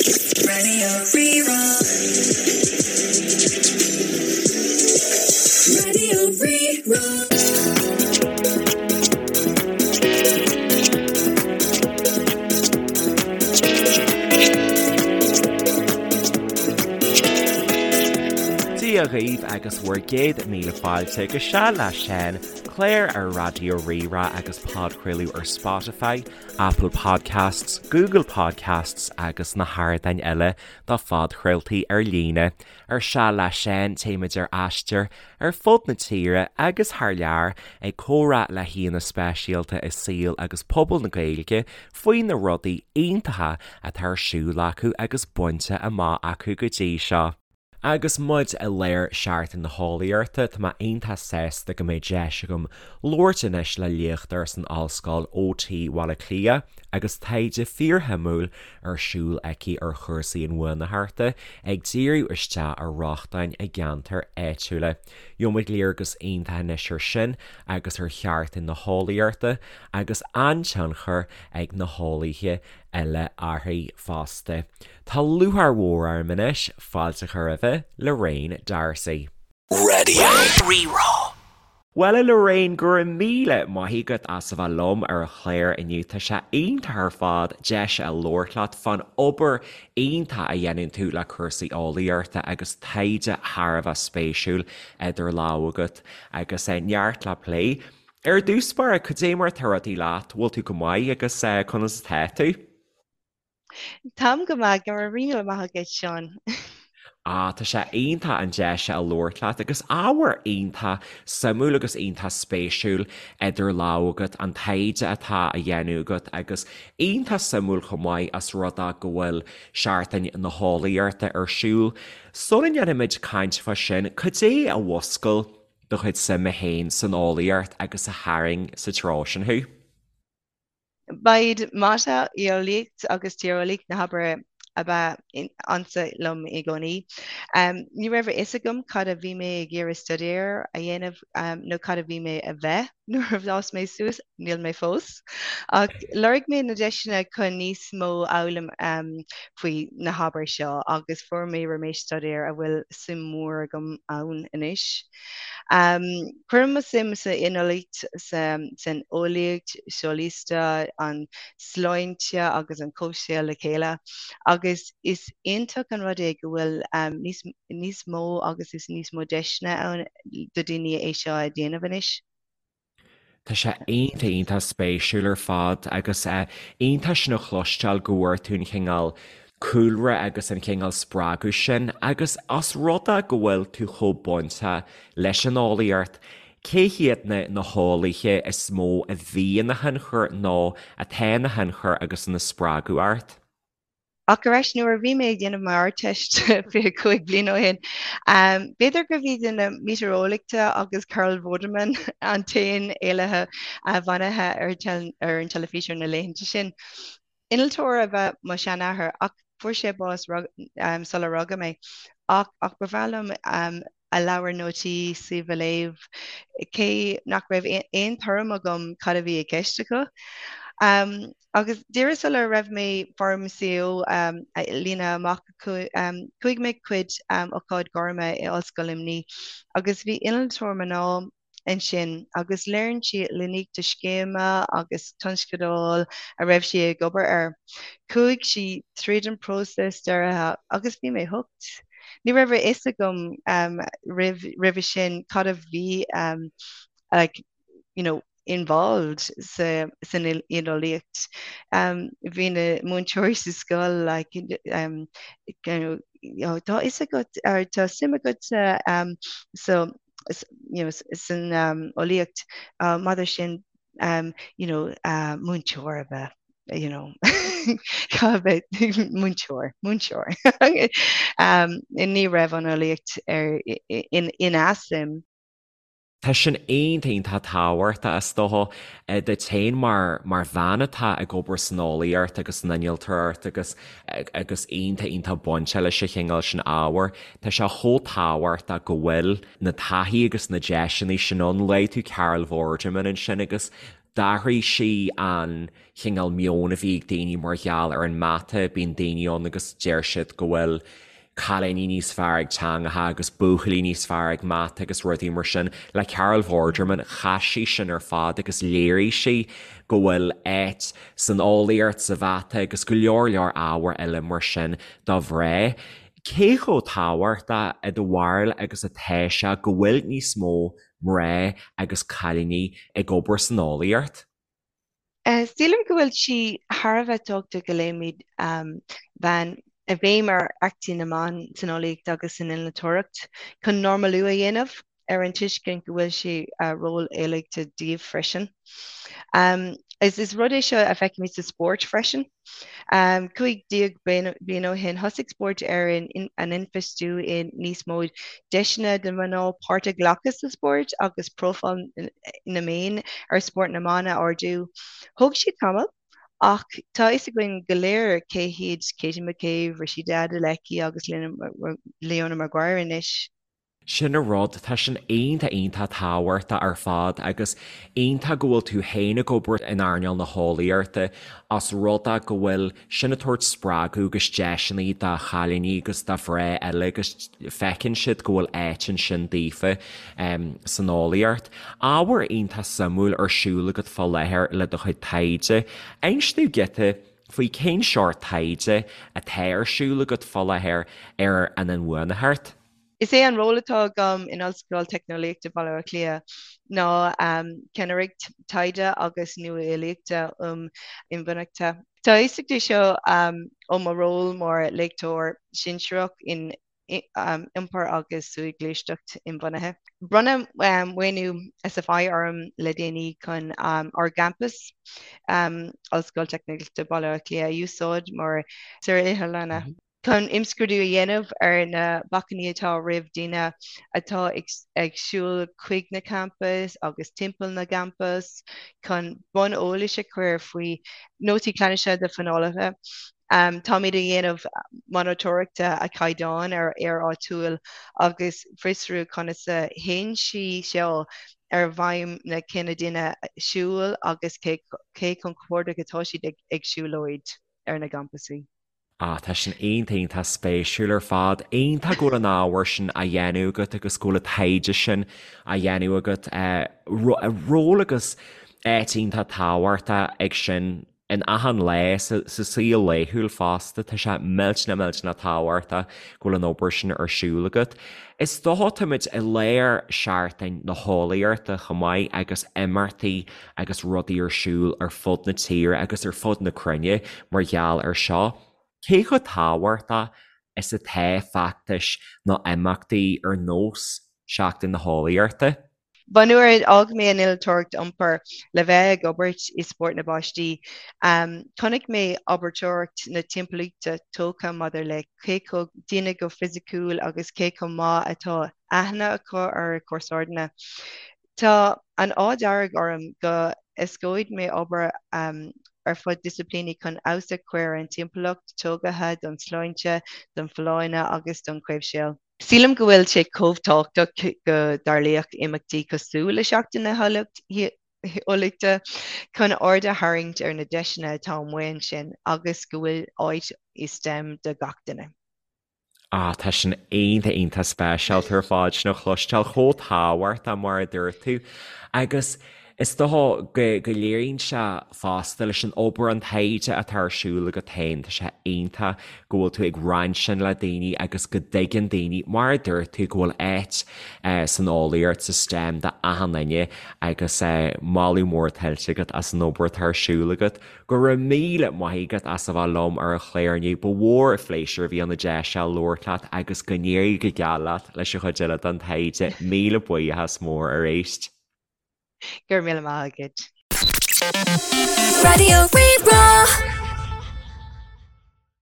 Raidió Rí-Rá. Raidió Rí-Rá. Dia dhaoibh agus bhur gcéad míle fáilte go Seal le Seán, clár ar Raidió Rí-Rá agus podchraoladh ar Spotify, Apple Podcasts, Google Podcasts agus na hardáin eile do phodchraoltaí ar líne. Ar Seal le Seán, téimid ar aistear ar fud na tíre agus thar lear ag comhrá le haíonna speisialta i saol agus pobal na Gaeilge faoi na rudaí iontacha atá ar siúl acu agus bainte amach acu go dtí seo. Agus muid i lár Seachtain na hEolaíochta, tá mé iontach sásta go mbeidh deis agam labhairt anois le léachtóir san Ollscoil OT Bhaile Átha Cliath agus taighde fíorshuimiúil ar siúl aici ar chúrsaí inbhuanaitheachta, ag díriú isteach ar rochtain i gceantair áitiúla. Gheobhaimid léargas iontach anois ar sin agus ar Sheachtain na hEolaíochta agus an-tionchar ag na heolaithe eile uirthi fosta. Tá lúcháir mhór orm anois fáilte a chur roimh Lorraine D'Arcy. Raidió Rí-Rá. Bhuel a Lorraine, go raibh míle maith agat as a bheith liom ar an chlár inniu. Tá sé iontach ar fad deis a labhairt leat fán obair iontach a dhéanann tú le cúrsaí eolaíochta agus taighde thar a bheith spéisiúil idir lámha agat agus neart le plé. Ar dtús báire, cad é mar atá rudaí leat? Bhfuil tú go maith agus conas atá tú? Táim go maith, go raibh míle maith agat, Seán. Ah, tá sé iontach an deis seo a labhairt leat agus ábhar iontach suimiúil agus iontach spéisiúil idir lámha agat, an taighde atá á dhéanamh agat agus iontach suimiúil chomh maith as rud é go bhfuil Seachtain na hEolaíochta ar siúl. Sula ndéanfaimid caint fá sin, cad é a mhúscail do chuid suime féin san eolaíocht agus a tharraing sa treo sin thú? Ba iad mata, eolaíocht agus tíreolaíocht na hábhair a ba ansa liom i gcónaí. Ní raibh a fhios agam cad a bhí mé ag iarraidh staidéar a dhéanamh nó cad a bhí mé a bheith nuair a d'fhás mé suas, níl mé fós! Ach lorg mé na deiseanna chun níos mó a fhoghlaim faoi na hábhair seo agus fuair mé réimse staidéir a bhfuil suim mhór agam ann anois. Cuirim mo suim san innealtóireacht, san eolaíocht shóisialta, an sláinte agus an comhshaol le chéile agus is iontach an rud é go bhfuil níos níos mó agus is níos mó deiseanna ann do daoine é seo a dhéanamh anois. Tá sé iontach iontach spéisiúil ar fad agus iontach sin a chloisteáil go bhfuair tú an chineál cúlra agus an chineál spreagadh sin agus os rud é go bhfuil tú chomh bainteach leis an eolaíocht, cé hiad na na heolaithe is mó a bhí ina thionchar nó atá ina thionchar agus ina spreagadh ort? Ach ar ais nuair a bhí mé ag déanamh m'Ardteist 25 bliain ó shin, b'fhéidir gurbh iad na meitéareolaithe agus Carol Vorderman an t-aon eolaithe bunaithe ar ar an teilifís ar na laethanta sin. Innealtóir ab ea mo sheanathair ach fuair sé bás sular rugadh mé. Ach ach ba bhreá liom a leabhar nótaí suímh a léamh, cé nach raibh aon tuairim agam cad a bhí i gceist acu. Agus díreach sula raibh mé Form CO a líonadh amach, chuaigh mé chuig ócáid gairme i Ollscoil Luimnigh agus bhí innealtóir mná ansin agus léirigh sí línte scéime agus tionscadail a raibh sí ag obair air. Chuaigh sí tríd an próiseas deartha agus bhí mé hooked. Ní raibh a fhios agam roimh roimhe sin cad a bhí like you know involved sa san innealtóireacht. Bhí na múinteoirí sa scoil like you know tá a fhios agat or tá suim agat sa you know san eolaíocht maidir sin you know múinteoir a bheith you know a bheith múinteoir múinteoir ní raibh an eolaíocht ar ina suim. Tá sin iontach iontach tábhachtach is dócha duit féin mar mar bhean atá ag obair san eolaíocht agus san innealtóireacht agus agus iontach iontach bainte leis an chineál sin ábhair. Tá sé chomh tábhachtach go bhfuil na taithí agus na deiseanna sin ann. Luaigh tú Carol Vorderman ansin agus. D'athraigh sí an chineál meoin a bhí ag daoine mar gheall ar an mata, bíonn daoine ann agus deir siad go bhfuil cailíní níos fearr ag teangacha agus buachaillí níos fearr ag mata agus rudaí mar sin. Le Carol Vorderman, chaith sí sin ar fad agus léirigh sí go bhfuil áit san eolaíocht, sa mhata agus go leor leor ábhar eile mar sin do mhná. Cé chomh tábhachtach i do bharúil agus atá sé go bhfuil níos mó mná agus cailíní ag obair san eolaíocht? Sílim go bhfuil sí thar a bheith tábhachtach go leagfaimid bhean béim ar éachtaí na mban san eolaíocht agus san innealtóireacht chun normalú a dhéanamh ar an tuiscint go bhfuil sé ról eolaíochta díobh freisin. Is rud é seo a feicimid sa spórt freisin. 15 bliain ó shin, thosaigh Spórt Éireann an infheistiú i níos mó deiseanna do mhná páirt a ghlacadh sa spórt agus profáil na meán ar spórt na mban a ardú. Thóg sé tamall, ach tá a fhios againn go léir cé hiad Katie McCabe, Rhasidat Adeleke agus Leona Maguire anois. Sin an rud, tá sin iontach iontach tábhachtach ar fad agus iontach go bhfuil tú féin ag obair in earnáil na heolaíochta os rud é go bhfuil sin ag tabhairt spreagadh agus deiseanna do chailíní agus do mhná eile agus feiceann siad go bhfuil áit ansin daofa san eolaíocht. Ábhar iontach suimiúil ar siúl agat fá láthair le do chuid taighde. Inis dúinn giota faoi cén seort taighde atá ar siúl agat fá láthair ar an inbhuanaitheacht. Is é an ról atá agam in Ollscoil Teicneolaíochta Bhaile Átha Cliath ná ceannaireacht taighde agus nuálaíochta um inbhuanaitheacht. Tá a fhios aige seo ó mo ról mar léachtóir sinsearach in Iompar agus Soghluaisteacht Inbhuanaithe. Bronnadh maoiniú SFI orm le déanaí chun ár gcampas, Ollscoil Teicneolaíochta Bhaile Átha Cliath, a úsáid mar saotharlann. chun imscrúdú a dhéanamh ar na bacainní atá roimh daoine atá ag siúl chuig na campais agus timpeall na gcampas, chun bonn eolais a chur faoi nótaí ceannais do phleanálaithe. Táimid ag déanamh monatóireachta ar chaighdeán ar aer áitiúil agus fiosrú conas a théann sí seo ar bhfeidhm na cine daoine siúil agus cé chomh compordach atá siad ag siúlóid ar na gcampasaí. Ah, tá sin iontach, iontach spéisiúil ar fad. Iontach go bhfuil an ábhar sin á dhéanamh agat agus go bhfuil an taighde sin á dhéanamh agat. Ról agus áit iontach tábhachtach ag sin in achan lá sa saol laethúil fosta. Tá sé millteanach, millteanach tábhachtach go bhfuil an obair sin ar siúl agat. Is dócha táimid i lár Seachtain na hEolaíochta chomh maith agus imeachtaí agus rudaí ar siúl ar fud na tíre agus ar fud na cruinne mar gheall ar seo. Cé chomh tábhachtach is atá feachtais nó imeachtaí ar nós Seachtain na hEolaíochta? Ba nuair a d'fhág mé an innealtóireacht iompair le bheith ag obair i spórt na bpáistí, chonaic mé abairteoireacht na timpeallachta tógtha maidir le cé chomh daoine go fisiciúil agus cé chomh maith atá aithne acu ar a comharsana. Tá an ádh dearg orm go éascóidh mé obair ar fud disciplíní chun feabhas a chur ar an timpeallacht tógtha don tsláinte, don fholláine agus don chomhshaol. Sílim go bhfuil sé chomh tábhachtach go dtarlaíodh imeachtaí cosúil le Seachtain na hEolaíochta chun aird a tharraingt ar na deiseanna atá amuigh ansin agus go bhfuil áit i stem do gach duine. Ah, tá sin iontach, iontach speisialta ar fad sin a chloisteáil, chomh tábhachtach mar a dúirt tú. Agus is dócha go, go léiríonn sé fosta leis an obair, an taighde atá ar siúl agat féin, tá sé iontach go bhfuil tú ag roinnt sin le daoine agus go dtuigeann daoine, mar a dúirt tú, go bhfuil áit san eolaíocht, sa STEM do achan duine agus moladh mór tuillte agat as an obair atá ar siúl agat. Go raibh míle maith agat as a bheith liom ar an chlár inniu. Ba mhór an phléisiúr a bhí ann an deis seo labhairt leat agus go n-éirí go geal leat leis an chuid eile den taighde. Míle buíochas mór arís. Go raibh míle maith agat. Raidió Rí-Rá.